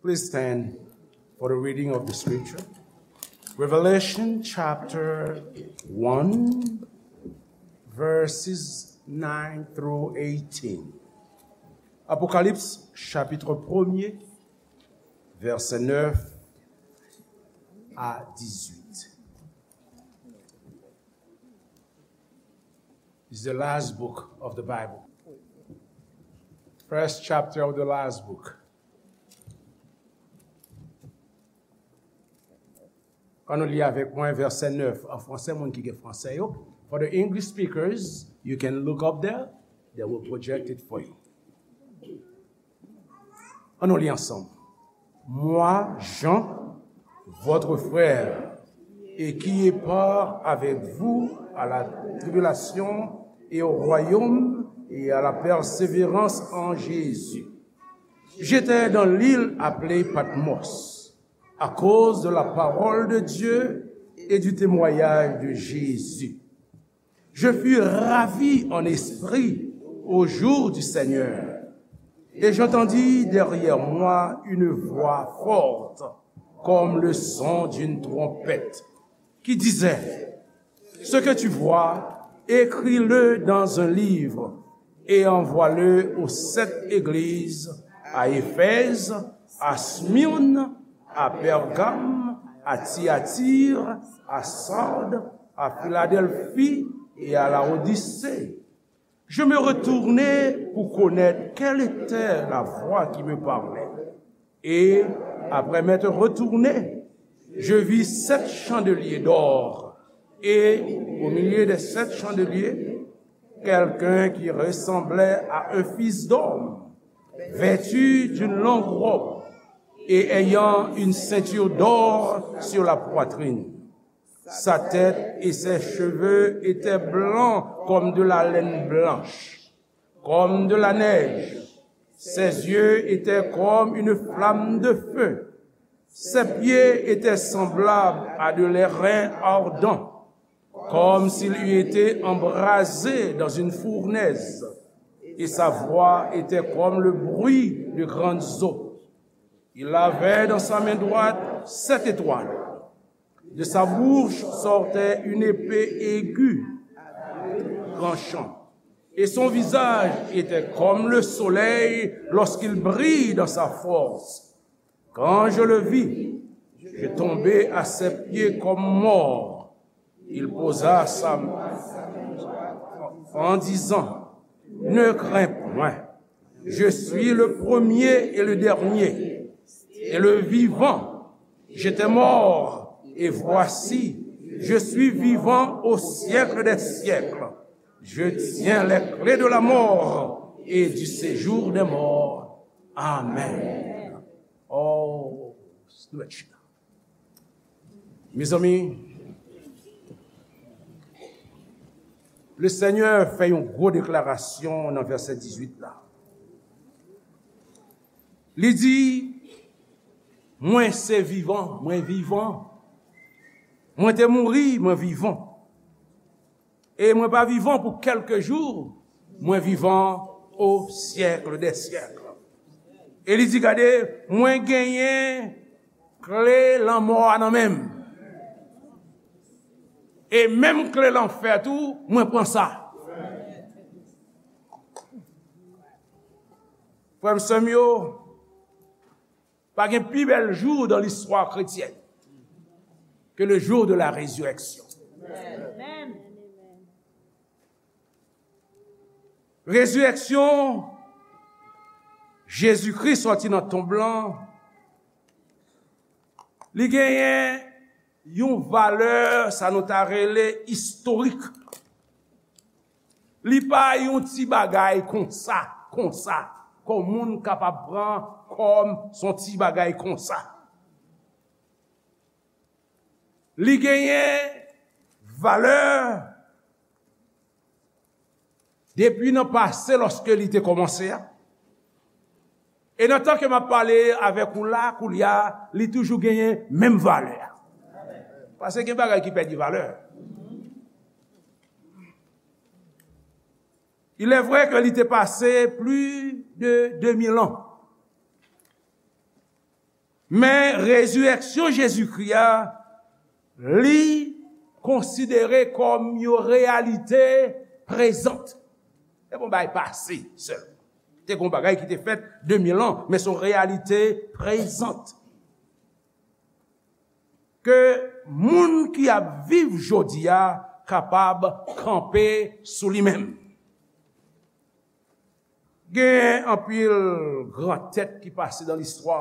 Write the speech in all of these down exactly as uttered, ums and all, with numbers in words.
Please stand for the reading of the scripture. Revelation chapter one, verses nine through eighteen. Apocalypse chapitre premier, verset neuf à dix-huit. It's the last book of the Bible. First chapter of the last book. Ann nou li avèk mwen vèsè nèf an fransè, moun ki gen fransè yo. For the English speakers, you can look up there. They will project it for you. Ann nou li ansanm. Moi, Jean, votre frère, et qui est part avec vous à la tribulation et au royaume et à la persévérance en Jésus. J'étais dans l'île appelée Patmos, à cause de la parole de Dieu et du témoignage de Jésus. Je fus ravi en esprit au jour du Seigneur, et j'entendis derrière moi une voix forte, comme le son d'une trompette, qui disait, ce que tu vois, écris-le dans un livre et envoie-le aux sept églises, à Éphèse, à Smyrne, à Pergame, à Thyatire, à Sardes, à Philadelphie et à Laodicée. Je me retournai pour connaître quelle était la voix qui me parlait. Et, après m'être retourné, je vis sept chandeliers d'or, et au milieu des sept chandeliers, quelqu'un qui ressemblait à un fils d'homme, vêtu d'une longue robe et ayant une ceinture d'or sur la poitrine. Sa tête et ses cheveux étaient blancs comme de la laine blanche, comme de la neige. Ses yeux étaient comme une flamme de feu. Ses pieds étaient semblables à de l'airain ardent, comme s'il eût été embrasé dans une fournaise, et sa voix était comme le bruit de grandes eaux. Il avait dans sa main droite sept étoiles. De sa bouche sortait une épée aiguë, tranchante, et son visage était comme le soleil lorsqu'il brille dans sa force. Quand je le vis, je tombai à ses pieds comme mort. Il posa sa main en disant, ne crains point, je suis le premier et le dernier, et le vivant. J'étais mort, et voici, je suis vivant au siècle des siècles. Je tiens les clés de la mort et du séjour des morts. Amen. Oh, nou mèt chita. Mezanmi, Lesenyè fè yon gwo deklarasyon nan vèsè dizuit la. Li di, mwen se vivan, mwen vivan. Mwen te mouri, mwen vivan. E mwen pa vivan pou kèlke jou, mwen vivan o syèk dè syèk. E li di, gade, mwen genyen kle lanmò a nan men m. E menm kle lanfè tou, mwen pran sa. Frè m, sè m yo, pa gen pi bèl jou dans l'histoire chrétienne que le jour de la résurrection. Rezirèksyon Jezikri sòti nan tonb lan, li genyen yon valè, sa nou ta rele istorik. Li pa yon ti bagay konsa, konsa, kòm moun kapab pran kòm s on ti bagay konsa. Li genyen valè depi nan pase, lòske li te kòmanse a. E nan tan ke m ap pale avèk ou la, koulye a, li toujou genyen menm valè a. Paske gen bagay ki pèdi valè. Il est vrai que li te pase plis de de mil an. Men rezirèksyon Jezikri a, li konsidere kòm yon reyalite prezan. Se pa yon bagay pase sèlman. Te gen yon bagay ki te fèt de mil an, men se yon reyalite prezan. Ke moun ki ap viv jodi a kapab kanpe sou li menm. Gen anpil gran tèt ki pase nan listwa.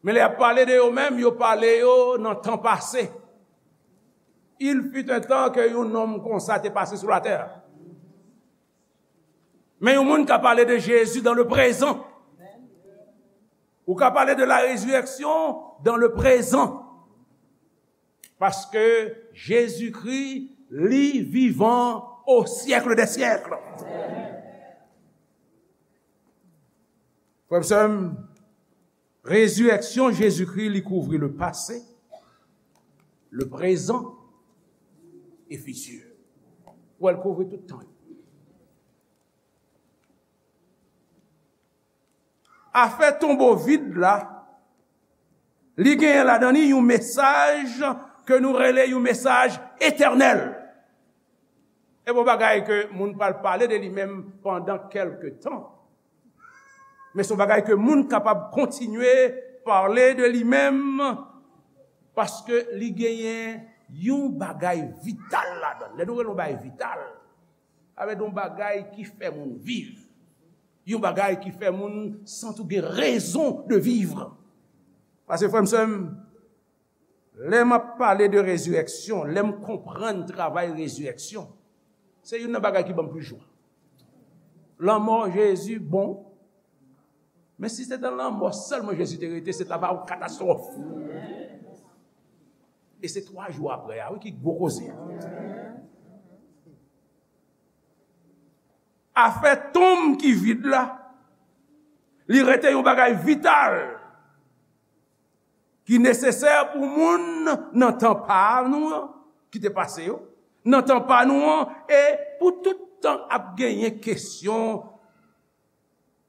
Men lè y ap pale de yo menm, yo pale yo nan tan pase. Il fut un temps que yon nonm konsa te pase sou latè. Men yon moun ka pale de Jezi dans le présent. Ou ka pale de la résurrection dans le présent. Paske Jezikri, li vivan au siècle des siècles. Frè m, sè m, rezirèksyon Jezikri, li kouvri le passé, le présent et futur. Ou wè, l kouvri tout tan yo. Afè tonbo vid la, li genyen ladan li yon mesaj ke nou rele yon mesaj etènèl. E bon bagay ke moun pral pale de li menm pandan kèlke tan. Men se yon bagay ke moun kapab kontinye pale de li menm, paske li genyen yon bagay vital ladan l. Lè nou rele yon bagay vital, sa vle di yon bagay ki fè moun viv. Yon bagay ki fè moun santi w gen rezon de vivre. Paske, frè m, sè m, lè m ap pale de rezirèksyon, lè m konprann travay rezirèksyon, se youn nan bagay ki ban m plis jwa. Lanmò Jezi bon, men si se nan lanmò sèlman Jezi te rete, se ta va yon katastwòf. E se twa jou apre a, wi, ki gwo koze a. Afè tonm ki vid la, li rete yon bagay vital ki nesesè pou moun nan tan pa nou an, ki te pase yo, nan tan pa nou an, e pou tout tan ap genyen kesyon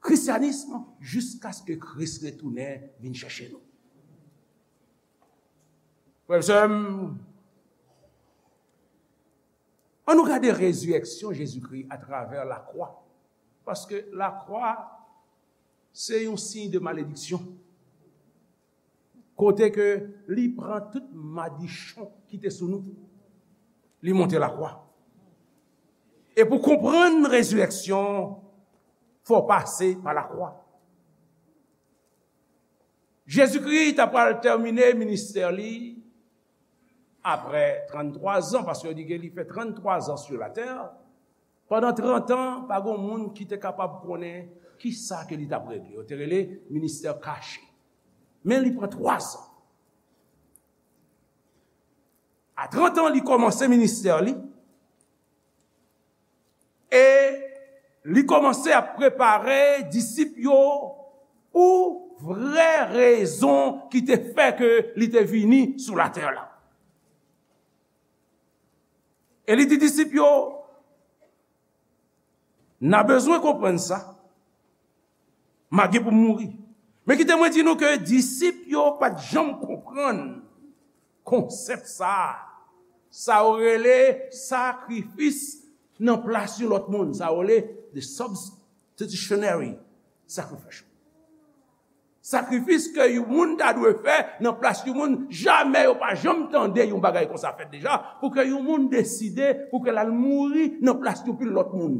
kristyanis jiskaske Kris retounen vin chèche nou. Frè m, sè m, ann nou gade rezirèksyon Jezikri atravè lakwa. Paske lakwa, se yon siy de malediksyon. Kote ke li pran tout madichon ki te sou nou, li monte lakwa. E pou konprann rezirèksyon, fò w pase pa lakwa. Jezikri ta pral tèmine ministè li apre tranntwa zan, paske yo di ke li fè tranntwa zan sou latè. Pandan trant an, pa gen moun ki te kapab konnen kisa ke li t ap regle. Yo te rele ministè kache. Men li pran twa zan. A trant an, li kòmanse ministè li. E li kòmanse ap prepare disip yo pou vrè rezon ki te fè ke li te vini sou latè la. E li di disip yo, n a bezwen konprann sa, m a gen pou m mouri. Men kite mwen di nou ke disip yo pa t janm konprann konsèp sa a. Sa yo rele sakrifis nan plas yon lòt moun. Sa yo rele the substitutionary sacrifice. Sakrifis ke yon moun ta dwe fè nan plas yon moun, jamè yo pa janm tande yon bagay konsa fèt deja, pou ke yon moun deside pou ke l al mouri nan plas yon pil lòt moun.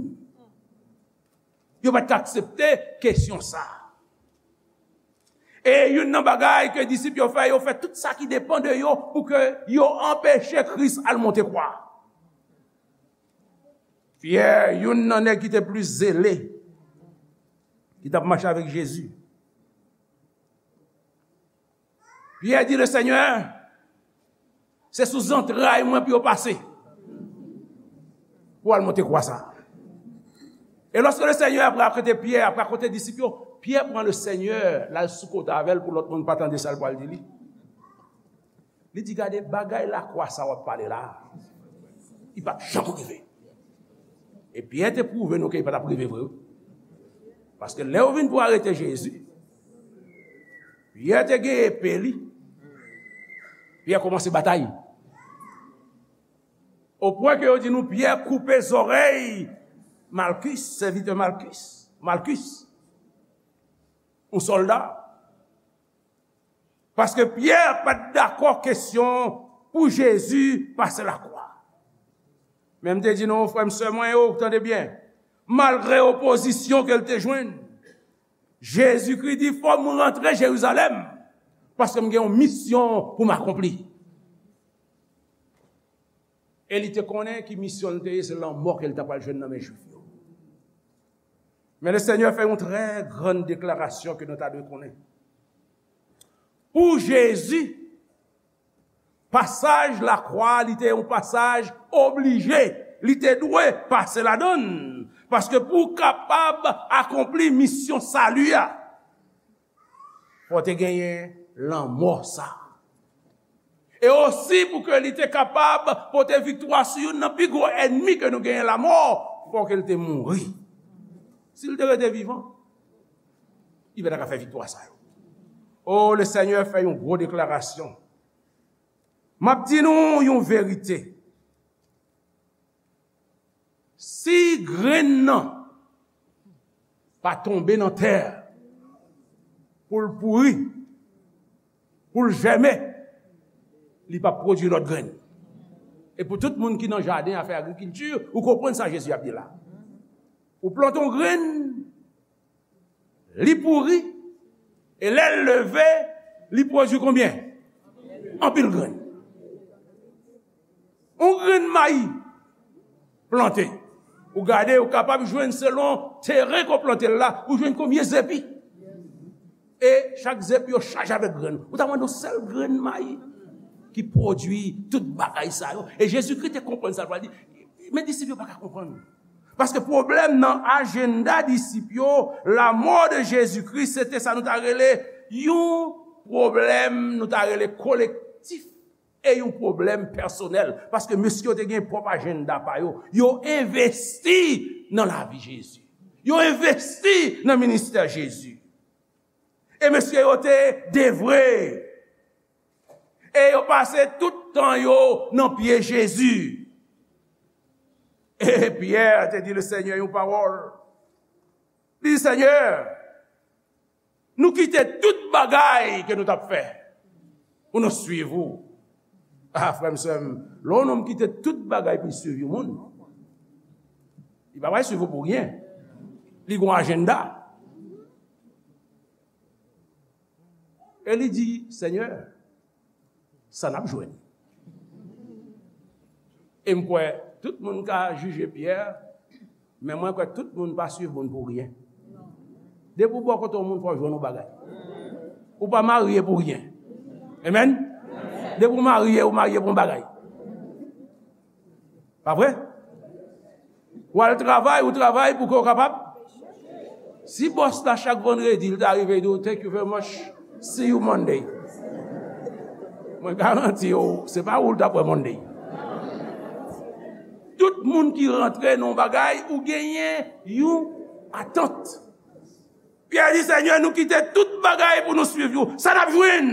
Yo pa t ka aksepte kesyon sa a. E youn nan bagay ke disip yo fè, yo fè tout sa ki depann de yo pou ke yo anpeche Kris al monte kwa. Pyè, youn nan nèg ki te plis zele, ki t ap mache avèk Jezi, Pyè di, le Senyè, se sou zantray mwen pou yo pase pou al monte kwa sa. E lòske le Senyè ap rakonte Pyè, ap rakonte disip yo, Pyè pran le Senyè, l al sou kote avè l pou lòt moun pa tande sa l pral di li. Li di, gade, bagay lakwa sa w ap pale la, li p ap janm rive. E Pyè te pwouve nou ke li pa t ap rive vre, wi. Paske lè yo vin pou arete Jezi, Pyè te gen epe li. Pyè kòmanse batay. O pwen ke yo di nou Pyè koupe zòrèy Malkis, sèvitè Malkis, Malkis, yon sòlda. Paske Pyè pa t dakò kesyon pou Jezi pase lakwa. Men m te di nou, frè m, sè mwen yo, tande byen, malgre opozisyon ke l te jwenn, Jezikri di, "Fò m rantre Jerizalèm, paske m gen yon misyon pou m akonpli." E li te konnen ki misyon l te ye, se lanmò ke l ta pral jwenn nan men Jwif yo. Men Lesenyè fè yon trè grann deklarasyon ke nou ta dwe konnen. Pou Jezi, pasaj lakwa, li te yon pasaj oblije. Li te dwe pase ladan l. Paske pou w kapab akonpli misyon sali a, fò w te genyen lanmò sa. E osi pou ke li te kapab pote viktwa sou youn nan pi gwo ènmi ke nou genyen, lanmò, fò ke l te mouri. Si l te rete vivan, li pa ta ka fè viktwa sa yo. O, Lesenyè fè yon gwo deklarasyon. M ap di nou yon verite. Si grenn nan pa tonbe nan tè pou l pouri, pou l jèmen, li p ap pwodui lòt grenn. E pou tout moun ki nan jaden a fè agrikilti, ou konprann sa Jezi ap di la. Ou plante yon grenn, li pouri, e lè l leve, li pwodui konbyen? Anpil grenn. Yon grenn mayi plante. Ou gade, ou kapab jwenn selon teren ke w plante l la, ou jwenn konbyen zepi. E chak zepi yo chaje avèk grenn. Ou ta mande yon sèl grenn mayi ki pwodui tout bagay sa yo. E Jezikri te konprann sa l pral di. Men disip yo pa ka konprann. Paske pwoblèm nan ajanda disip yo, lanmò de Jezikri, se te sa nou ta rele yon pwoblèm, nou ta rele kolektif, e yon pwoblèm pèsonèl. Paske mesye yo te gen pwòp ajanda pa yo. Yo envesti nan lavi Jezi. Yo envesti nan ministè Jezi. E mesye yo te devwe. E yo pase tout tan yo nan pye Jezi. E Pyè te di Lesenyè yon pawòl. Li di, "Senyè, nou kite tout bagay ke nou t ap fè pou nou swiv ou." A, frè m, sè m, lè yon nonm kite tout bagay pou l swiv yon moun, li pa pral swiv ou pou ryen. Li gen yon ajanda. E li di, "Senyè, sa n ap jwenn?" E m kwè tout moun ka jije Pyè, men mwen kwè tout moun pa swiv moun pou ryen. Depi w bò kote yon moun, fò w jwenn yon bagay. Ou pa marye pou ryen. Amen? Depi w marye, ou marye pou yon bagay. Pa vre? W al travay, ou travay pou ke w kapab. Si bòs la chak vandredi, li ta rive, li di w, "Thank you very much, see you Monday." Mwen garanti w, se pa ou l t ap wè Monday. Tout moun ki rantre nan yon bagay, ou genyen yon atant. Pyè di, "Senyè, nou kite tout bagay pou nou swiv ou. Sa n ap jwenn?"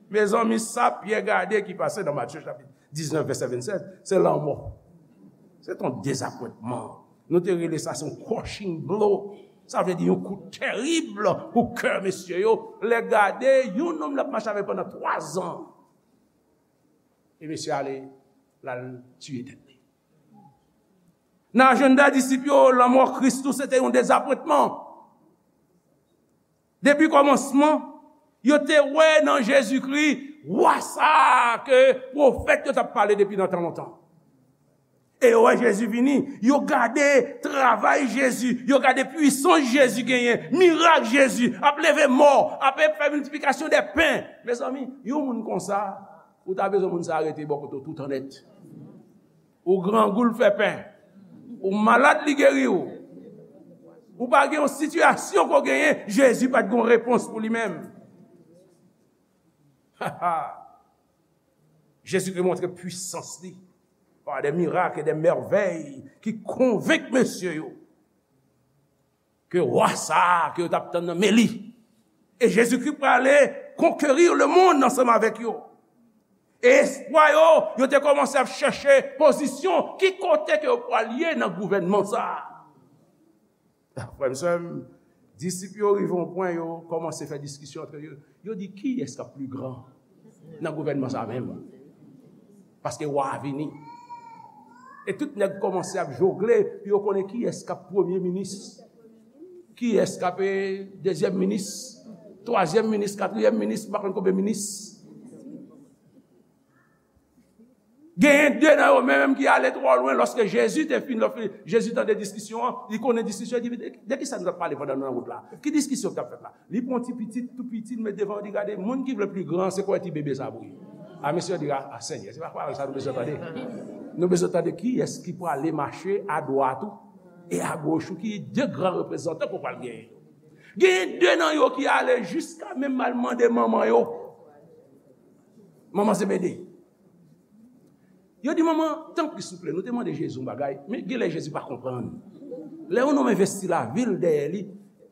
Mezanmi, sa Pyè gade ki pase nan Matye chapit diznèf, vèsè vennsèt, se lanmò. Se t on dezapwentman. Nou te rele sa, se yon crushing blow. Sa vle di yon kou terib pou kè mesye yo. Lè gade, yon nonm l ap mache avèk pandan twa zan. E mesye ale, l al tiye tèt li. Nan ajanda disip yo, lanmò Kris tou, se te yon dezapwentman. Depi kòmansman, yo te wè nan Jezikri wa sa a ke pwofèt yo t ap pale depi nan tan lontan. E yo wè Jezi vini, yo gade travay Jezi, yo gade pwisans Jezi genyen, mirak Jezi, ap leve mò, ap fè miltiplikasyon dè pen. Mezanmi, yon moun konsa, ou ta bezwen moun sa a rete bò kote w toutan nèt. Ou grangou, l fè pen. Ou malad, li geri w. Ou pa gen yon sitiyasyon ke w genyen, Jezi pa t gen yon repons pou li menm. Jezikri montre pwisans li pa de mirak e de mèvèy ki konvenk mesye yo ke wa sa a ke yo t ap tann nan men li, E Jezikri prale konkeri lemonn ansanm avèk yo. E espwa yo, yo te kòmanse ap chèche pozisyon, ki kote ke yo pral ye nan gouvènman sa a. Frè m, sè m, disip yo rive yon pwen, yo kòmanse fè diskisyon antre yo. Yo di, "Kiyès k ap pli gran nan gouvènman sa a menm?" Paske wa a vini. E tout nèg kòmanse ap jogle pou yo konnen kiyès k ap premye minis, kiyès k ap, eh, dezyèm minis, twazyèm minis, katriyèm minis, m pa konn konbyen minis. Genyen de nan yo menm ki ale twò lwen. Lòske Jezi te fin, lòske Jezi tande diskisyon an, li konnen diskisyon, li di, "De, de ki sa nou t ap pale pandan nou nan wout la? Ki diskisyon ki t ap fèt la?" Li pran ti pitit, tou piti, li met devan, li gade, moun ki vle pli gran, se kwè ti bebe sa pou li. A, mesye yo di, "A, a, Senyè, se pa pawòl sa nou bezwen tande. Nou bezwen tande kiyès ki prale mache adwat ou e agoch ou, ki de gran reprezantan ke w pral genyen yo." Genyen de nan yo ki ale jiska menm al mande manman yo. Manman Zebede. Yo di, "Manman, tanpri, souple, nou te mande Jezi yon bagay, men genlè Jezi pa konprann. Lè yon nonm envesti lavi l dèyè li,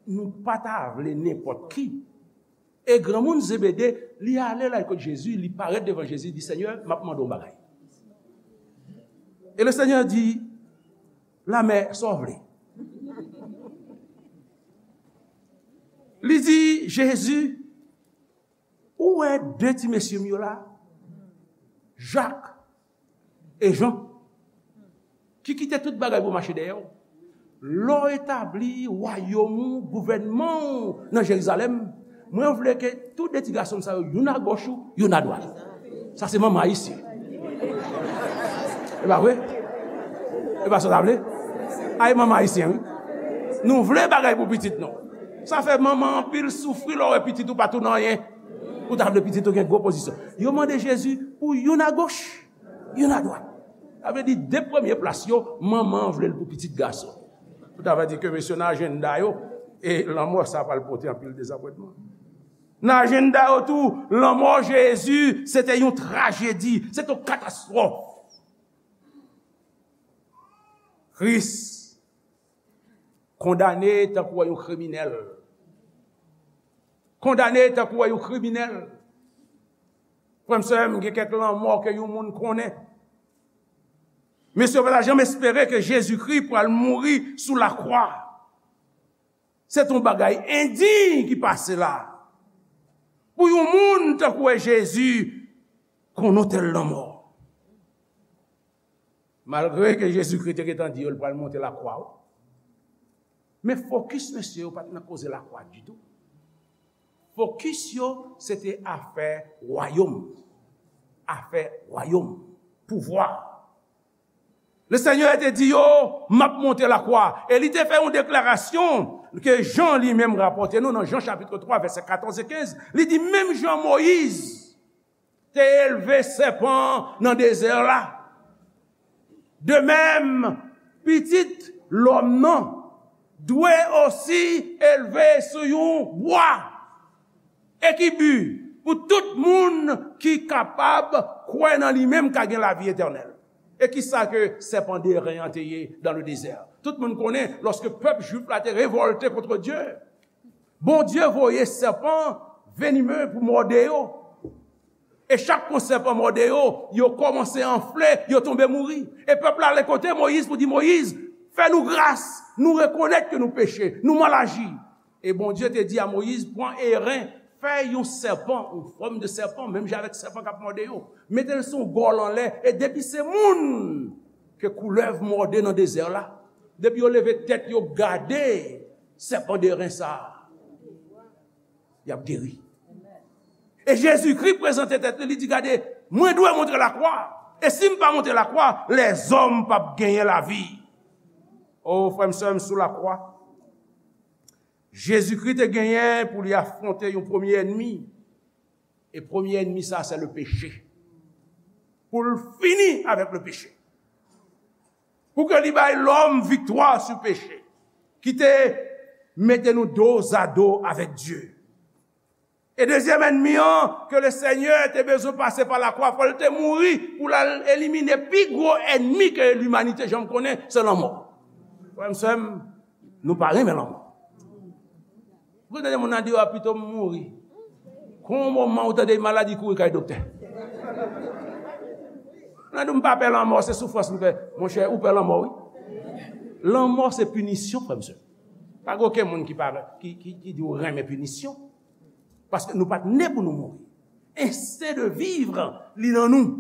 nou pa ta vle nenpòt ki." E granmoun Zebede, li ale la kot Jezi, li parèt devan Jezi, li di, "Senyè, m ap mande yon bagay." E le Senyè di, "Lamè, sa w vle?" Li di, "Jezi, ou wè de ti mesye m yo la, Jak e Jan, ki kite tout bagay pou mache dèyè w. Lè w etabli wayòm ou, gouvènman ou nan Jerizalèm, mwen vle ke tou de ti gason m sa yo, youn agoch ou, youn adwat." Sa se manman ayisyen. E pa vre? E pa sa w ta vle? A, e manman ayisyen, wi. Nou vle bagay pou pitit nou. Sa fè manman anpil soufri lè w wè pitit ou pa tounen anyen. Ou ta vle pitit ou gen gwo pozisyon. Yo mande Jezi pou youn agoch, youn adwat. Sa vle di, de premye plas yo, manman an vle l pou pitit gason. Ou ta vle di ke mesye nan ajanda yo, e lanmò sa pral pote anpil dezapwentman. Nan ajanda yo tou, lanmò Jezi, se te yon trajedi, se te yon katastwòf. Kris kondane tankou yon kriminèl. Kondane tankou yon kriminèl. Frè m, sè m, gen kèk lanmò ke yon moun konnen. Mesye yo pa ta janm espere ke Jezikri pral mouri sou lakwa. Se t on bagay endiy ki pase la. Pou yon moun tankou Jezi konn on tèl lanmò. Malgre ke Jezikri te gentan di yo l pral monte lakwa, wi. Men fokis mesye yo pa t nan koze lakwa ditou. Fokis yo, se te afè wayòm. Afè wayòm. Pouvwa. Le Senyè te di yo, "M ap monte lakwa." E li te fè yon deklarasyon ke Jan li menm rapòte nou nan Jan chapit twa, vèsè katòz e kenz. Li di, "Menm jan Moyiz te elve sèpan nan dezè la, de menm, Pitit Lòm nan dwe osi elve sou yon bwa, e ki bi pou tout moun ki kapab kwè nan li menm ka gen lavi etènèl." E ki sa ke sèpan de ren an te ye dans le désert? Tout moun konnen, lòske pèp jwif la te revòlte kont Dye, Bondye voye sèpan venime pou mòde yo. E chak fwa sèpan mòde yo, yo kòmanse anfle, yo tonbe mouri. E pèp la ale kote Moyiz pou di, "Moyiz, fè nou gras, nou rekonèt ke nou peche, nou mal aji." E Bondye te di a Moyiz, "Pran eren, fè yon sèpan, yon fòm de sèpan, menm jan avèk sèpan k ap mòde yo. Mete l sou yon gòl anlè, e depi se moun ke koulèv mòde nan dezè la, depi yo leve tèt yo gade sèpan de ren sa a, y ap geri." E Jezikri prezante tèt li, li di, "Gade, mwen dwe monte lakwa. E si m pa monte lakwa, lèzòm p ap genyen lavi." O, frè m, sè m, sou lakwa, Jezikri te genyen pou li afwonte yon premye ènmi. E premye ènmi sa, se le peche. Pou l fini avèk le peche. Pou ke li bay lòm viktwa sou peche, ki te mete nou dozado avèk Dye. E dezyèm ènmi an, ke le Senyè te bezwen pase pa lakwa, fò l te mouri pou l al elimine pi gwo ènmi ke limanite janm konnen, se lanmò. Frè m, sè m, nou pa renmen lanmò. Ou konn tande moun nan di, "A, pito m mouri." Gon moman ou tande maladi kouri kay doktè. Nan di, "M pa pè lanmò, se soufrans m pè." Monchè, ou pè lanmò, wi. Lanmò se pinisyon, frè m, sè. Pa gen okenn moun ki pa, ki, ki, ki di w renmen pinisyon. Paske nou pa t ne pou nou mouri. Ensten de vivre, li nan nou.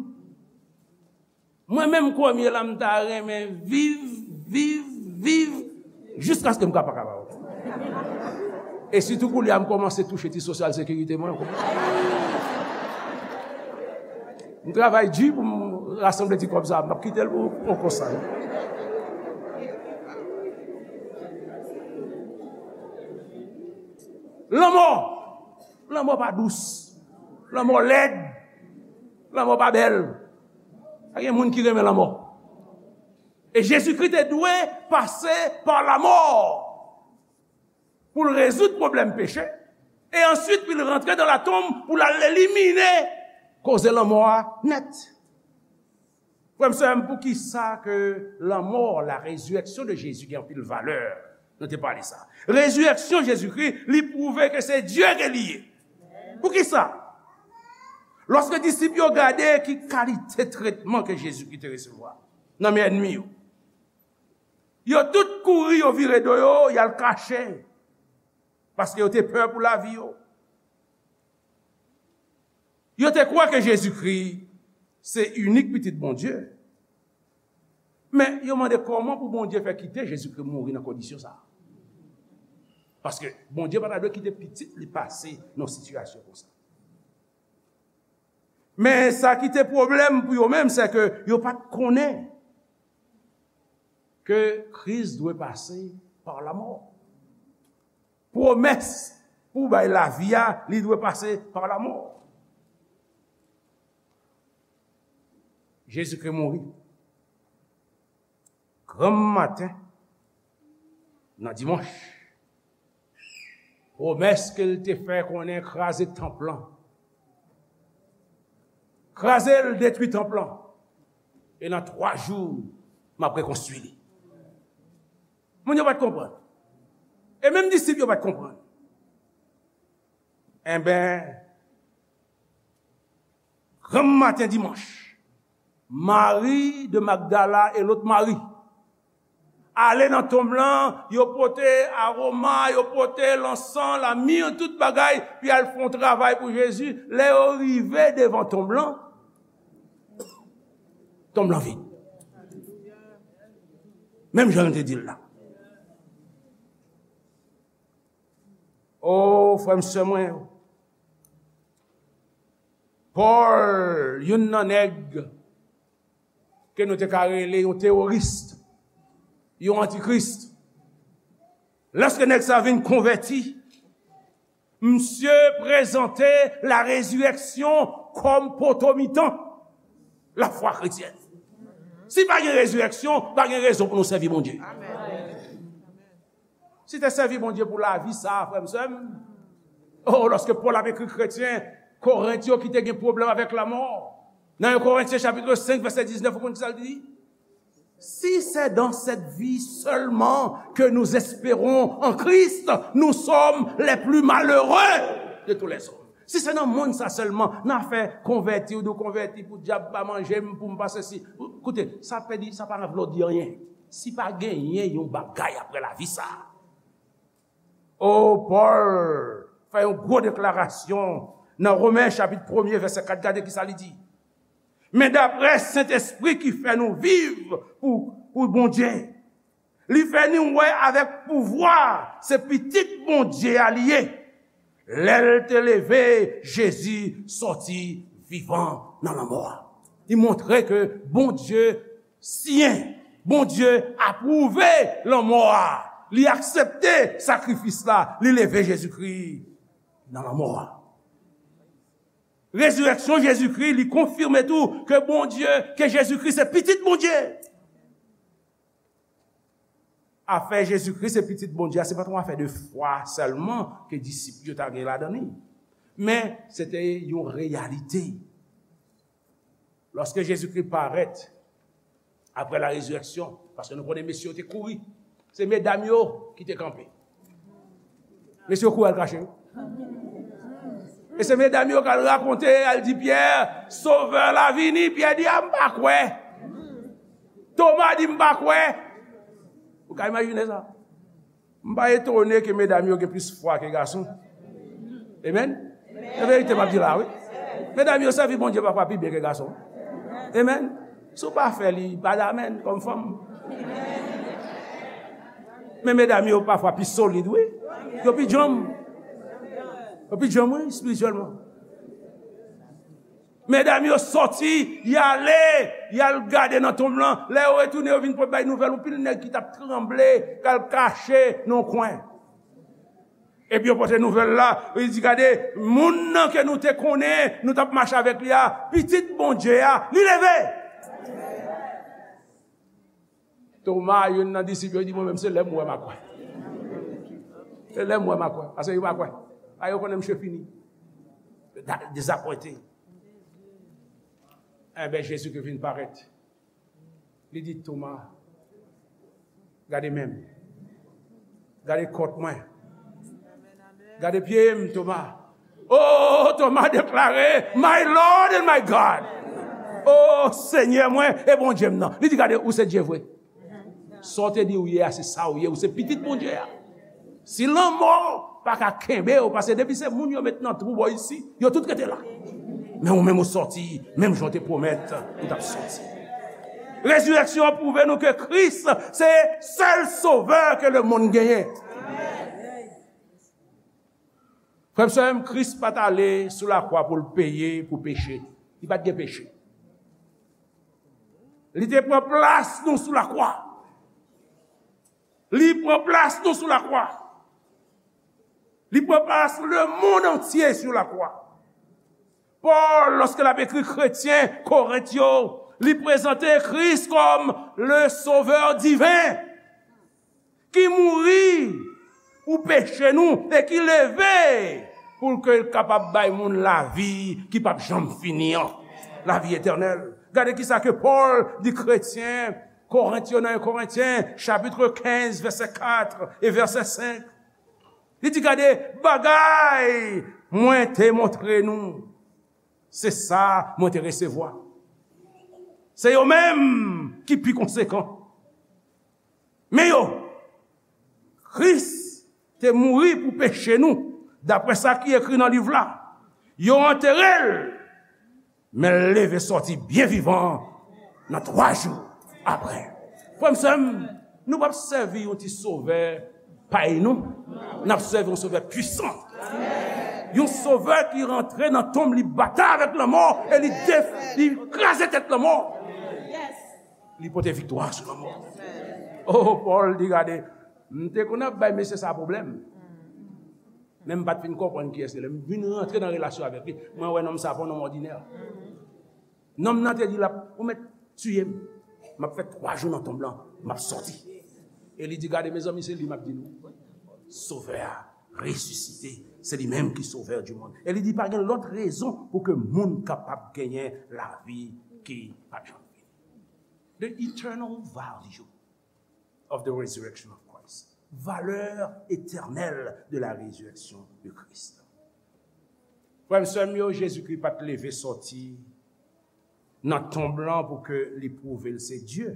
Mwen menm, premye la, m ta renmen viv, viv, viv, jiskaske m ka pa kapab. E sitou kounye a, m kòmanse touche ti sosyal sekirite mwen. M travay di pou m rasanble ti kòb sa a, m p ap kite l pou, pou konsa, non. Lanmò! Lanmò pa dous. Lanmò lèd. Lanmò pa bèl. Pa gen moun ki renmen lanmò. E Jezikri te dwe pase pa lanmò pou l rezoud pwoblèm peche. E answit, pou l rantre nan latonm, pou l al elimine koze lanmò a nèt. Frè m, sè m, poukisa ke lanmò, la résurrection de Jésus gen anpil valè? Nou te pale sa. Rezirèksyon Jezikri, li pwouve ke se Dye ke li ye. Poukisa? Lòske disip yo gade ki kalite tretman ke Jezikri te resevwa nan men ènmi yo, yo tout kouri, yo vire do yo, y al kache, paske yo te pè pou lavi yo. Yo te kwè ke Jezikri se inik Pitit Bondye. Men yo mande kòman pou Bondye fè kite Jezikri mouri nan kondisyon sa a. Paske Bondye pa ta dwe kite pitit li pase nan sitiyasyon konsa. Men sa ki te pwoblèm pou yo menm, se ke yo pa t konnen ke Kris dwe pase pa lanmò. Pwomès pou bay lavi a, li dwe pase pa lanmò. Jezikri mouri. Granm maten, nan dimanch, pwomès ke l te fè konnen kraze tanp lan. Kraze l, detwi tanp lan. E nan twa jou, m ap rekonstwi li. Moun yo pa t konprann. E menm disip yo pa t konprann. Enben, granm maten dimanch, Mari de Magdala e lòt Mari ale nan tonm lan, yo pote aroma, yo pote lansan, lamir, tout bagay, pou y al fè yon travay pou Jezi. Lè yo rive devan tonm lan, tonm lan vid. Menm jan nou te di l la. O, frè m, sè mwen yo, Pòl, youn nan nèg ke nou te ka rele yon teworis, yon antikris, lèske nèg sa vin konvèti, misye prezante la résurrection kòm poto mitan lafwa kretyèn. Si pa gen rezirèksyon, pa gen rezon pou nou sèvi Bondye. Si te sèvi Bondye pou lavi sa a, frè m, sè m, o, lòske Pòl ap ekri kretyen Korent yo ki te gen pwoblèm avèk lanmò, nan en Korentyen chapit senk, vèsè diznèf, ou konn sa l di? Si c'est dans cette vie seulement que nous espérons en Christ, nous sommes les plus malheureux de tous les hommes. Si se nan mond sa sèlman, nan afè konvèti, ou di w konvèti pou dyab pa manje m, pou m pa sesi. Koute, sa pèdi, sa pa vle di anyen. Si pa genyen yon bagay apre lavi sa a. O, Pòl fè yon gwo deklarasyon nan Women chapit premye, vèsè kat, gade ki sa li di. Men daprè Sentespri ki fè nou viv pou, pou Bondye, li fè nou wè avèk pouvwa se Pitit Bondye a li ye. Lè l te leve Jezi sòti vivan nan lanmò a. Li montre ke Bondye siyen, Bondye apwouve lanmò a. Li aksepte sakrifis la, li leve Jezikri nan lanmò a. Rezirèksyon Jezikri, li konfime tou ke Bondye, ke Jezikri se Pitit Bondye. Afè Jezikri se Pitit Bondye a, se pa t yon afè de fwa sèlman ke disip yo ta gen ladan li. Men, se te yon reyalite. Lòske Jezikri parèt apre la rezirèksyon, paske nou konnen mesye yo te kouri, se medam yo ki te kanpe. Mesye yo kouri al kache yo. E se medam yo k al rakonte, al di Pyè, Sovè la vini. Pyè di, a, m pa kwè. Toma di, m pa kwè. Ou ka imajine sa? M pa etone ke medam yo gen plis fwa ke gason. Amen? Se verite m ap di la, wi. Medam yo sèvi Bondye pafwa pi byen ke gason. Amen? Si w pa fè li, pa damèn kòm fanm. Men medam yo pafwa pi solid, wi. Yo pi djanm. Yo pi djanm, wi, espirityèlman. Medam yo sòti, y ale, y al gade nan tonm lan. Lè yo retounen, yo vin pou bay nouvèl, yon pil nèg ki t ap tranble, k al kache nan yon kwen. Epi yo pote nouvèl la, yo di, gade, moun nan ke nou te konnen, nou t ap mache avèk li a, pitit Bondye a, li leve! Toma, youn nan disip yo, di, mwen menm, se lè m wè m a kwè. Se lè m wè m a kwè. Paske yo pa kwè. A, yo konnen misye fini. Da- Dezapwente. Enben, Jezi ki vin parèt. Li di, Toma, gade men m. Gade kòt mwen. Gade pye m, Toma. Oh, Toma deklare, My Lord and my God. Oh, Senyè mwen e Bondye m nan. Li di, gade, ou se Dye vre. Sa w te di ou ye a, se sa ou ye. Ou se pitit Bondye a. Si lanmò pa ka kenbe w, paske depi se moun yo met nan twou bò isi, yo tout rete la. Men ou menm ou sòti, menm jan w te pwomèt ou t ap sòti. Rezirèksyon an pwouve nou ke Kris se sèl sovè ke lemonn genyen. Frè m, sè m, Kris pa t ale sou lakwa pou l peye pou peche. Li pa t gen peche. Li te pran plas nou sou lakwa. Li pran plas nou sou lakwa. Li pran plas lemonn antye sou lakwa. Pòl, lòske l ap ekri kretyen Korent yo, li prezante Kris kòm le Sovè diven ki mouri pou peche nou e ki leve pou l ke l kapab bay moun lavi ki p ap janm fini an, lavi etènèl. Gade kisa ke Pòl di kretyen Korent yo nan en Korentyen, chapit kenz, vèsè kat e vèsè senk. Li di, gade, bagay mwen te montre nou, se sa mwen te resevwa. Se yo menm ki pi konsekan. Men yo, Kris te mouri pou peche nou, daprè sa ki ekri nan liv la. Yo antere l, men l leve sòti byen vivan nan twa jou apre. Frè m, sè m, nou p ap sèvi yon ti sovè pay nou. N ap sèvi yon sovè pwisan. Yon sovè ki rantre nan tonm, li batay avèk lanmò e li def-, li kraze tèt lanmò. Li pote viktwa sou lanmò. Oh, Pòl di, gade, m te konn ap bay mesye sa pwoblèm. Men m pa t fin konprann kiyès li. Lè m vin rantre nan relasyon avèk li, mwen wè nonm sa pa yon nonm òdinè. Nonm nan te di l ap, ou mèt tiye m. M ap fè twa jou nan tonm lan, m ap sòti. E li di, gade, mezanmi, se li m ap di nou. Sovè a resisite, se li menm ki Sovè di monn. E li di, pa gen lòt rezon pou ke moun kapab genyen lavi ki p ap janm fini. The eternal value of the resurrection of Christ. Valè etènèl de la résurrection de Christ. Frè m, sè m yo, Jezikri pa t leve sòti nan tonm lan pou ke li pwouve l se Dye.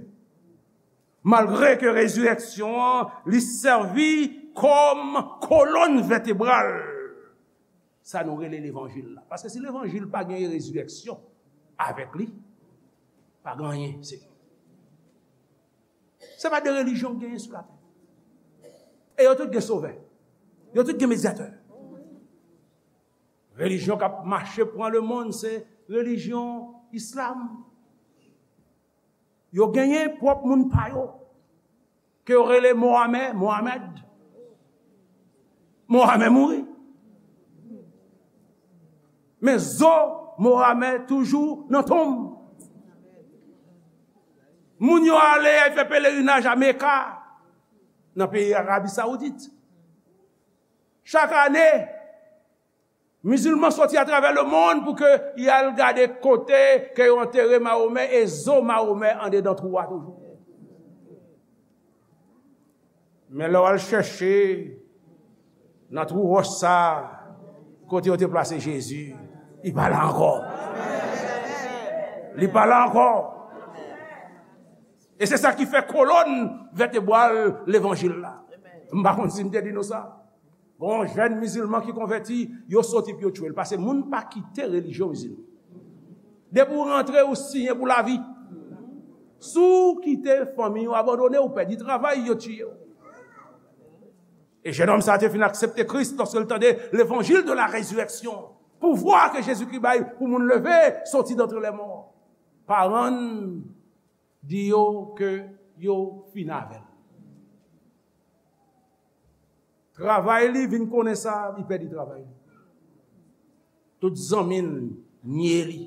Malgre ke rezirèksyon an, li sèvi kòm kolòn vètebral sa nou rele levanjil la. Paske si levanjil pa gen rezirèksyon avèk li, pa gen anyen, se Se pa de relijyon k genyen sou latè. E yo tout gen sovè. Yo tout gen medyatè. Relijyon k ap mache pran lemonn, se relijyon islam. Yo genyen pwòp moun pa yo, ke yo rele Mohamè, Mohamed. Mohamè mouri. Men zo Mohamè toujou nan tonm. Moun yo ale, y al fè pelerinaj a Meka, nan peyi Arabi Sawoudit. Chak ane, mizilman sòti atravè lemonn pou ke y al gade kote ke yo antere Mahomè e zo Mahomè andedan twou a toujou. Men lè w al chèche Nan twou wòch sa a, kote yo te plase Jezi, li pa la ankò. Li pa la ankò. E se sa ki fè kolòn vètebral levanjil la. M pa konn si m te di nou sa. Gon jèn mizilman ki konvèti, yo soti pou yo tchwe l. Paske moun pa kite relijyon mizilman. Depi w rantre, ou siyen pou lavi. Si w kite fanmi w abandone, ou pèdi travay, yo tiye w. E jennonm sa a te fin aksepte Kris lòske l tande levanjil de la rezireksyon. Pouvwa ke Jezikri bay pou moun leve, soti dantre lèmò. Paran l di yo ke yo fin avè l. Travay li vin konnen sa, li pèdi travay li. Tout zanmi l nye li.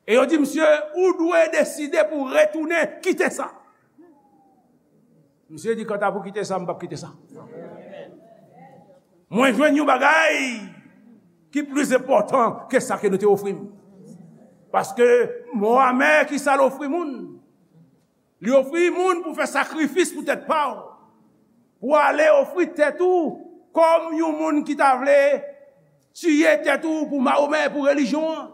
E yo di misye, ou dwe deside pou retounen kite sa. Misye di, kanta pou kite sa, m p ap kite sa. Mwen jwenn yon bagay ki plis enpòtan ke sa ke nou te ofri m. Paske mo amè ki sa l ofri moun. Li ofri moun pou fè sakrifis pou tèt pa w. Pou ale ofri tèt ou kòm yon moun ki ta vle tiye tèt ou pou Mahomè, pou relijyon an.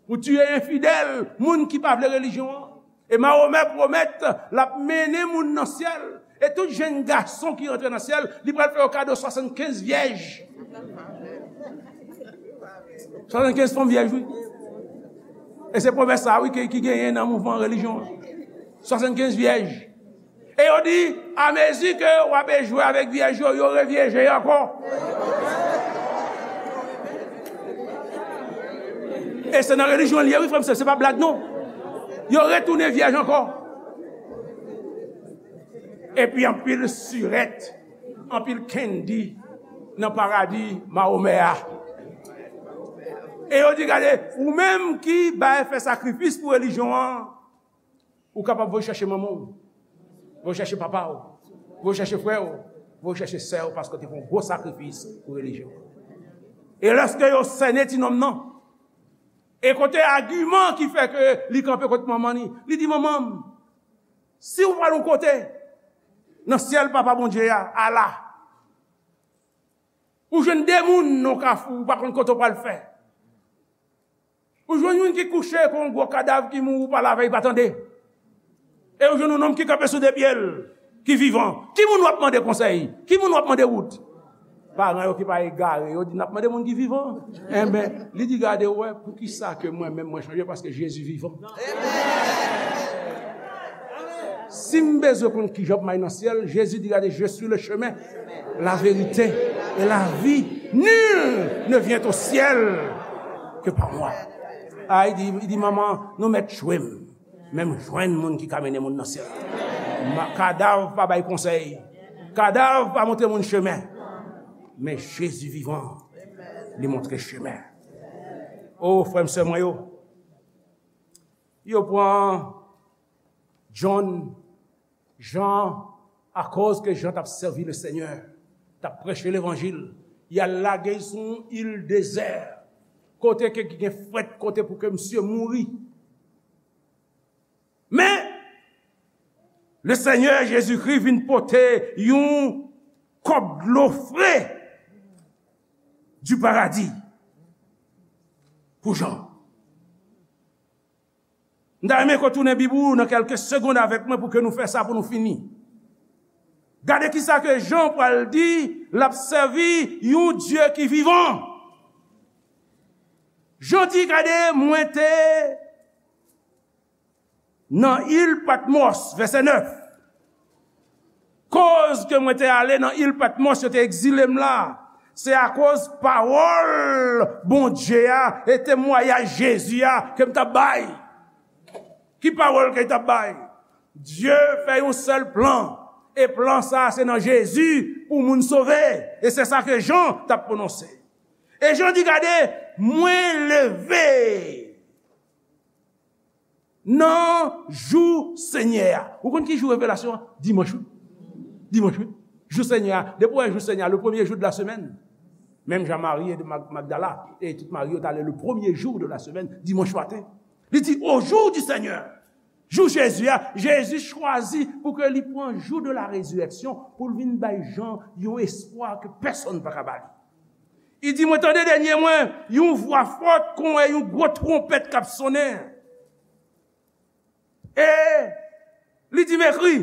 Pou tiye enfidèl, moun ki pa vle relijyon an. E Mahomè pwomèt l ap mennen moun nan syèl. E tout jèn gason ki rantre nan syèl, li pral fè yo kado swasannkenz vyèj. Swasannkenz fanm vyèj, wi. E se pwomès sa, wi, ki, ki genyen nan mouvman relijyon an. Swasannkenz vyèj. E yo di, amezi ke w ap jwe avèk vyèj yo, yo revyeje ankò. E se nan relijyon l ye, wi, frè m, se, se pa blag, non. Yo retounen vyèj ankò. Epi anpil sirèt, anpil kendi nan paradi Mahomè a. E yo di, gade, ou menm ki bay fè sakrifis pou relijyon an, ou kapab voye chèche manman w, voye chèche papa w, voye chèche frè w, voye chèche sè w, paske w te fè yon gwo sakrifis pou relijyon an. E lòske yo sènen ti nonm nan, e kote agiman ki fè ke li kanpe kot manman li, li di, manman m, si w pral yon kote nan syèl Papa Bondye a, ala, ou jwenn de moun nan kafou, ou pa konn kote w pral fè. Ou jwenn youn ki kouche kon yon gwo kadav ki mouri, ou pa la avè l, pa tande. E ou jwenn yon nonm ki kanpe sou de pye l, ki vivan. Ki moun w ap mande konsèy? Ki moun w ap mande wout? Paran yo ki pa egare, yo di, n ap mande moun ki vivan. Enben, li di, gade, w wè, poukisa ke mwen menm mwen chanje? Paske Jezi vivan. Si m bezwen konn kijan pou m al nan syèl, Jezi di, gade, je suis le chemin, la vérité et la vie. Nul ne vient au ciel que par moi. A, li di, li di, manman, nou mèt tchwe m. Men m jwenn moun ki ka mennen moun nan syèl. Ma-, kadav pa bay konsèy. Kadav pa montre moun chemen. Men Jezi vivan, li montre chemen. O, frè m, sè mwen yo, yo pran John, Jan, akoz ke Jan t ap sèvi Lesenyè, t ap preche levanjil, y al lage l sou yon il dezè, kote ke gen frèt, kote pou ke misye mouri. Men, Lesenyè Jezikri vin pote yon kòp dlo fre du paradis pou Jan. M ta renmen ke w tounen Bib ou nan kèlke segonn avèk mwen pou ke nou fè sa, pou nou fini. Gade kisa ke Jan pral di, l ap sèvi yon Dye ki vivan. Jan di, gade, mwen te nan il Patmòs, vèsè nèf. Koz ke mwen te ale nan il Patmòs, yo te egzile m la, se akoz pawòl Bondye a e temwayaj Jezi a ke m t ap bay. Ki pawòl ke l t ap bay? Dye fè yon sèl plan, e plan sa a se nan Jezi pou moun sove, e se sa ke Jan t ap pwononse. E Jan di, gade, mwen leve nan jou Senyè a. Ou konn ki jou revelasyon an? Dimanch, wi. Dimanch, wi. Jou Senyè a. Depi w wè jou Senyè a, le premier jour de la semaine. Menm jan Mari de Mag-, Magdala, e tout Mari yo t ale le premier jour de la semaine, dimanch maten. Li di, au jour du Seigneur. Jou Jezi a, Jezi chwazi pou ke li pran jou de la résurrection pou l vin bay Jan yon espwa ke pèsonn pa ka ba li. Li di, mwen tande dènye mwen, yon vwa fò kon wè yon gwo twonpèt k ap sonnen. E li di m ekri.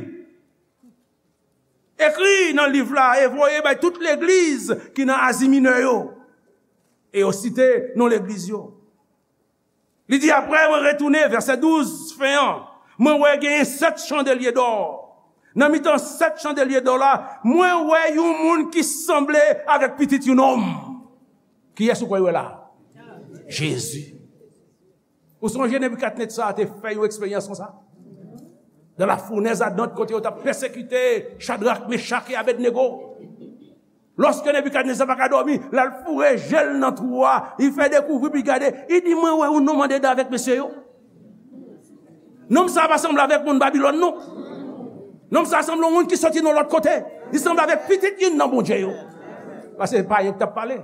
Ekri nan liv la e voye bay tout legliz ki nan Azi Minè yo. E yo site non legliz yo. Li di, apre mwen retounen, vèsè douz, fen an, mwen wè genyen sèt chandelye dò. Nan mitan sèt chandelye dò la, mwen wè yon moun ki sanble avèk pitit yon nonm. Kiyès ou kwè w wè la? Jezi. Ou sonje Nebikadnetza te fè yon eksperyans konsa? Dans la fournaise ardente, kote yo t ap pèsekite Chadrak, Mechak e Abednego. Lòske Nebikadnetza pa ka dòmi, l al foure je l nan twou a, li fè dekouvri, pou li gade, li di, mwen wè yon nonm andedan avèk mesye yo. Nonm sa a pa sanble avèk moun Babilòn, non. Nonm sa a sanble yon moun ki soti nan lòt kote. Li sanble avèk pitit youn nan Bondye yo. Paske se pa yo k t ap pale.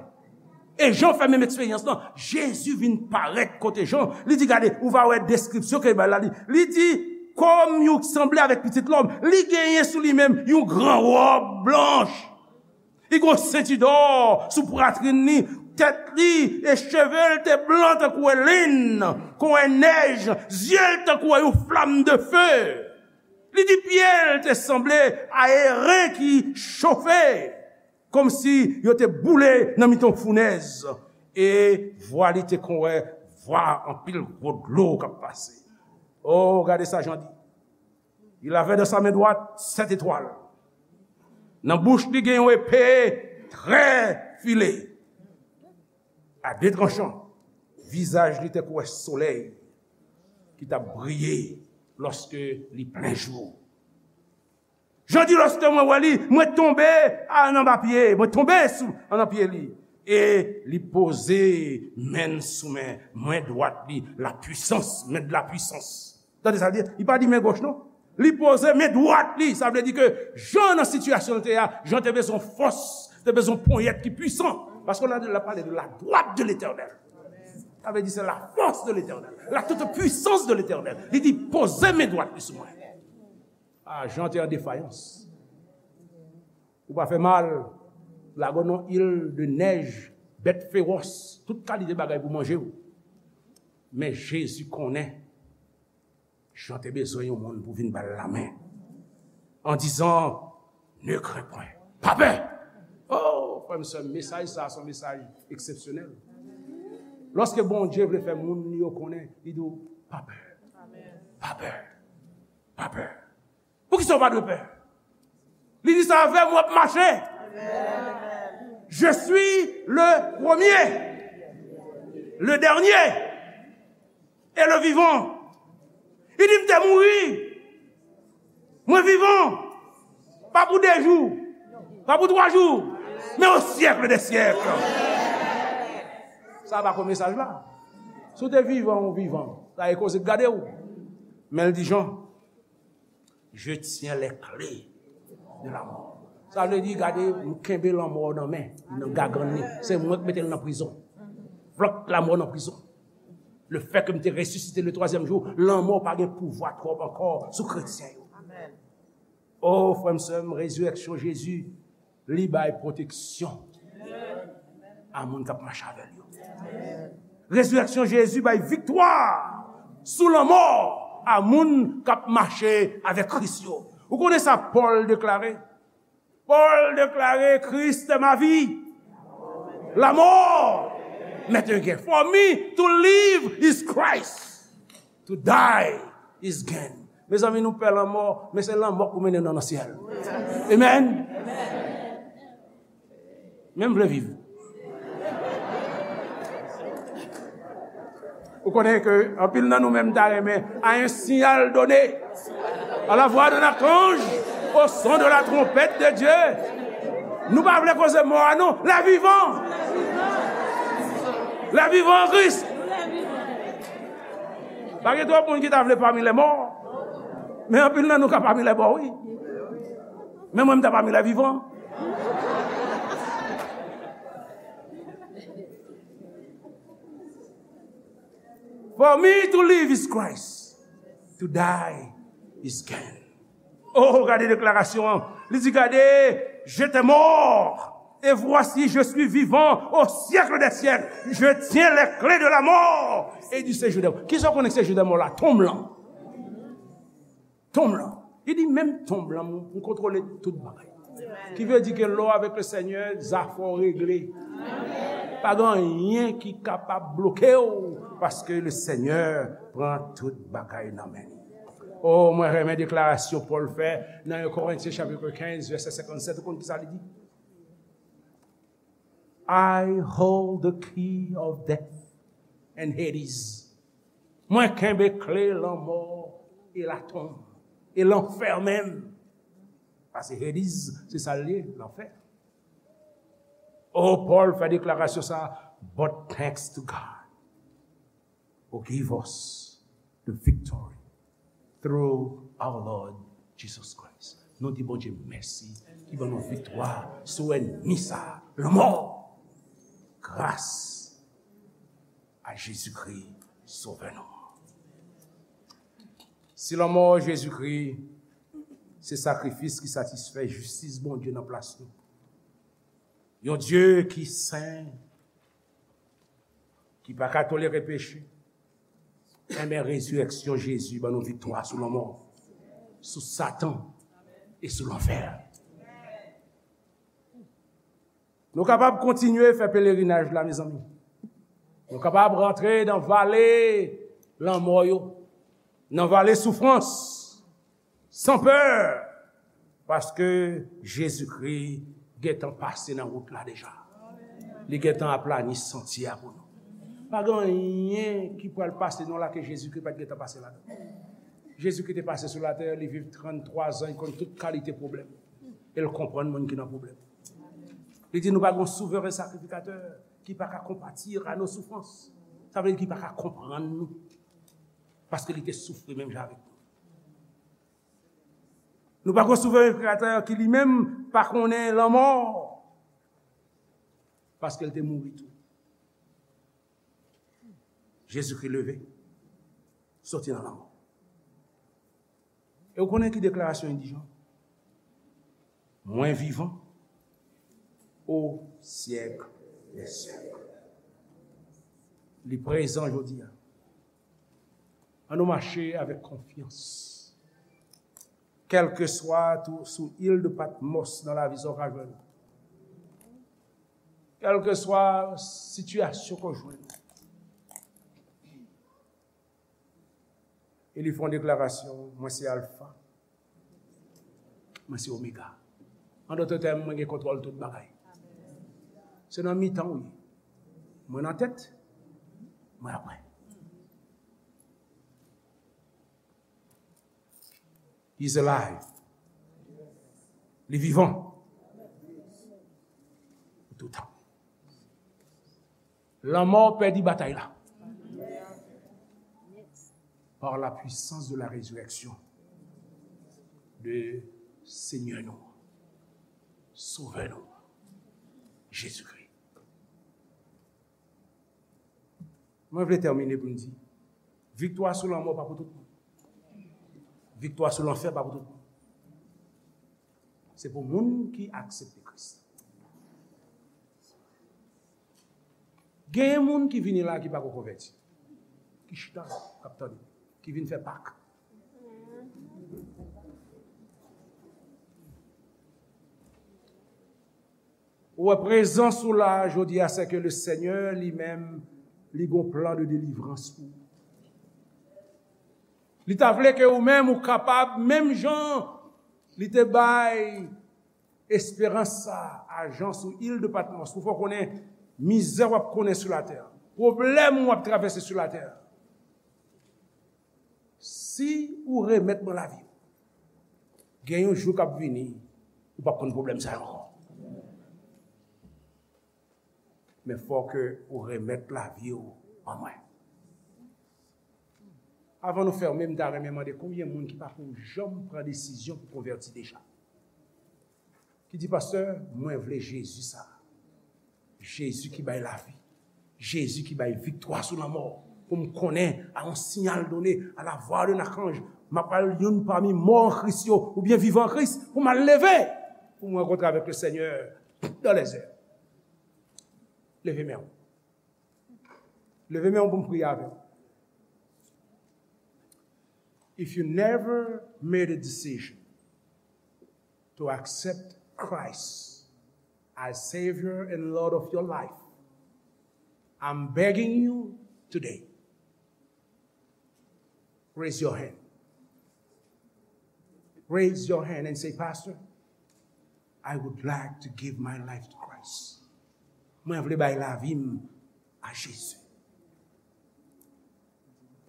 E Jan fè menm eksperyans lan. Jezi vin parèt kote Jan. Li di, gade, ou va wè deskripsyon ke l bay la. Li, li di, kòm yon sanble avèk pitit lòm, li genyen sou li menm yon gran wòb blanch. Li gen yon senti dò sou pwatrin li, tèt li e cheve l te blan tankou wè lenn, kon wè nèj, zye l tankou wè yon flam de fe. Li di pye l te sanble a eren ki chofe, kòmsi yo te boule nan mitan founèz, e vwa li te kon wè vwa anpil gwo dlo k ap pase. Oh, gade sa Jan di. Il avait dans sa main droite sept étoiles. Nan bouch li gen yon epe trè file, a de tranchan. Vizaj li te kouwè solèy ki t ap briye lòske li plen jou. Jan di, lòske mwen wè li, mwen tonbe a, anba pye, mwen tonbe sou, anba pye li. E li poze men l sou men, men dwat li, la puissance, men de la puissance. Tande sa l di, li pa di men goch non. Li poze men dwat li, sa vle di ke Jan nan sitiyasyon l te a, Jan te bezwen fòs, te bezwen ponyèt ki pwisan. Paske la, la pale de la droite de l'Éternel. Sa vle di se la force de l'Éternel, la toute puissance de l'Éternel. Li di poze men dwat li sou mwen. Ah, Jan te an defayans. Ou pa fè mal, lage w nan il de nèj, bèt fewòs, tout kalite bagay pou manje w. Men Jezi konnen Jan te bezwen yon moun pou vin ba l lamen, en disant, ne crains point. Pa pè! Oh, frè m, sè m, mesaj sa a se yon mesaj eksepsyonèl. Lòske Bondye vle fè moun li yo konnen, li di w, pa pè. Pa pè. Pa pè. Poukisa w pa dwe pè? Li di sa avè m, w ap mache. Je suis le premier, le dernier et le vivant. Li di m te mouri. Mwen vivan. Pa pou de jou, pa pou twa jou, men au siècle des siècles. Sa pa ko mesaj la. Si w te vivan, ou vivan. Sa e koze k gade w. Men l di Jan, je tiens les clés de la mort. Sa vle di, gade, m kenbe lanmò nan men, nan gagann li. Se mwen k mete l nan prizon. Flòk lanmò nan prizon. Le fait que m te resisite le twazyèm jou, lanmò pa gen pouvwa twòp ankò sou kretyen yo. Oh, frè m, sè m, rezirèksyon Jezi, li bay pwoteksyon a moun k ap mache avè l yo. Rezirèksyon Jezi bay viktwa sou lanmò a moun k ap mache avèk Kris yo. Ou konnen sa Pòl deklare? Pòl deklare, Christ est ma vie, la mort m'est un gain. For me to live is Christ, to die is gain. Mezanmi, nou pè lanmò, men se lanmò k pou mennen nou nan syèl. Amen. Men m vle viv. Ou konnen ke anpil nan nou menm ta renmen, à un signal donné, à la voix d'un archange, au son de la trompette de Dieu. Nou pa vle koze mò a non, les vivants. Les vivants en Christ. Pa gen twòp moun ki ta vle pami lè mò. Men anpil nan nou ka pami lè mò, wi. Men mwen, m ta pami lè vivan. For me to live is Christ. To die is gain. Oh, gade deklarasyon an. Li di, gade, j'étais mort, et voici, je suis vivant au siècle des siècles. Je tiens les clés de la mort et du séjour des morts. Kisa w konnen ki séjour des morts la? Tonm lan. Tonm lan. Li di, menm tonm lan, m, m kontwole tout bagay. Ki vle di ke lè w avèk le Senyè, zafè w regle. Pa gen anyen ki kapab bloke w, paske le Senyè pran tout bagay nan men li. Oh, mwen renmen deklarasyon Pòl fè nan en Korentyen chapit kenz, vèsè senkannsèt. Ou konn ki sa li di? I hold the key of death and Hades. Mwen kenbe kle lanmò e latonm e lanfè menm. Paske Hades, se sa l ye, lanfè. Oh, Pòl fè deklarasyon sa, but thanks to God who give us the victory through our Lord Jesus Christ. Nou di Bondye mèsi ki ban nou viktwa sou ènmi sa, lanmò. Gras a Jezikri, Sovè nou. Si lanmò Jezikri se sakrifis ki satisfè jistis Bondye nan plas nou, yon Dye ki sen, ki pa ka tolere peche, enben, rezirèksyon Jezi ban nou viktwa sou lanmò, sou Satan e sou lanfè. Nou kapab kontinye fè pelerinaj la, mezanmi. Nou kapab rantre nan vale lanmò yo, nan vale soufrans, san pè, paske Jezikri gentan pase nan wout la deja. Li gentan aplani santye a pou nou. Pa gen anyen ki pral pase nou la ke Jezikri pa t gentan pase ladan. Jezikri te pase sou latè, li viv tranntwa zan, li konn tout kalite pwoblèm. E l konprann moun ki nan pwoblèm. Li di nou pa gen yon souvren sakrifikatè ki pa ka konpati a nos soufrans. Sa vle di ki pa ka konprann nou. Paske li te soufri menm jan avèk nou. Nou pa gen yon souvren sakrifikatè ki li menm pa konnen lanmò. Paske l te mouri tou. Jezikri leve, soti nan lanmò. E w konnen ki deklarasyon li di, Jan? Mwen vivan o syèk dè syèk. Li prezan jodi a. Ann nou mache avèk konfyans. Kèlkeswa tou sou il de Patmos nan lavi sa w ka jwenn. Kèlkeswa sitiyasyon ke w jwenn. E li fè yon deklarasyon, mwen se Alfa, mwen se Omega. An dòt tèm, mwen gen kontwòl tout bagay. Se nan mitan w ye. Mwen nan tèt, mwen apre. He's alive. Li vivan. Pou toutan. Lanmò pèdi batay la. Par la puissance de la résurrection de Senyè nou, Sovè nou, Jezikri. Mwen vle tèmine pou m di, viktwa sou lanmò pa pou tout moun. Viktwa sou lanfè pa pou tout moun. Se pou moun ki aksepte Kris. Genyen moun ki vini la ki pako konvèti. Ki chita, k ap tande. Ki vin fè Pak. Ou wè, prezans ou la jodi a, se ke le Senyè li menm, li gon plan de delivrans pou ou. Li ta vle ke ou menm ou kapab, menm jan li te bay esperans sa a Jan sou il de Patmos, pou fè w konnen mizè w ap konnen sou latè, pwoblèm w ap travèse sou latè. Si ou remèt mwen lavi w, gen yon jou k ap vini, ou p ap konn pwoblèm sa yo ankò. Men fò ke ou remèt lavi w ban mwen. Avan nou fèmen, m ta renmen mande konbyen moun ki pako janm pran desizyon pou konvèti deja? Ki di, pastè, mwen vle Jezi sa. Jezi ki bay lavi. Jezi ki bay viktwa sou lanmò. Pou m konnen, à un signal donné, à la voix d'un archange, m ap al youn pami mò an Kris yo, oubyen vivan an Kris, pou m al leve, pou m rankontre avèk le Seigneur dans les airs. Leve men w. Leve men w pou m priye avè w. If you never made a decision to accept Christ as Savior and Lord of your life, I'm begging you today, raise your hand. Raise your hand and say, "Pastor, I would like to give my life to Christ." Mwen vle bay lavi m a Jezi.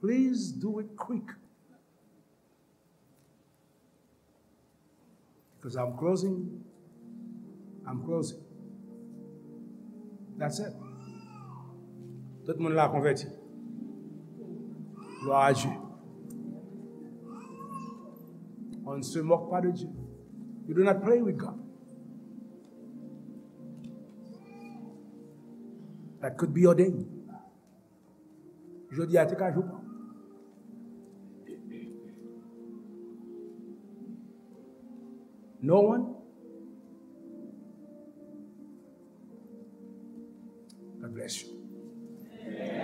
Please do it quick. Because I'm closing. I'm closing. That's it. Tout moun la konvèti. Gloire à Dieu. On ne se moque pas de Dieu. You do not play with God. That could be your day. Jodi a te ka jou pa w. No one? God bless you.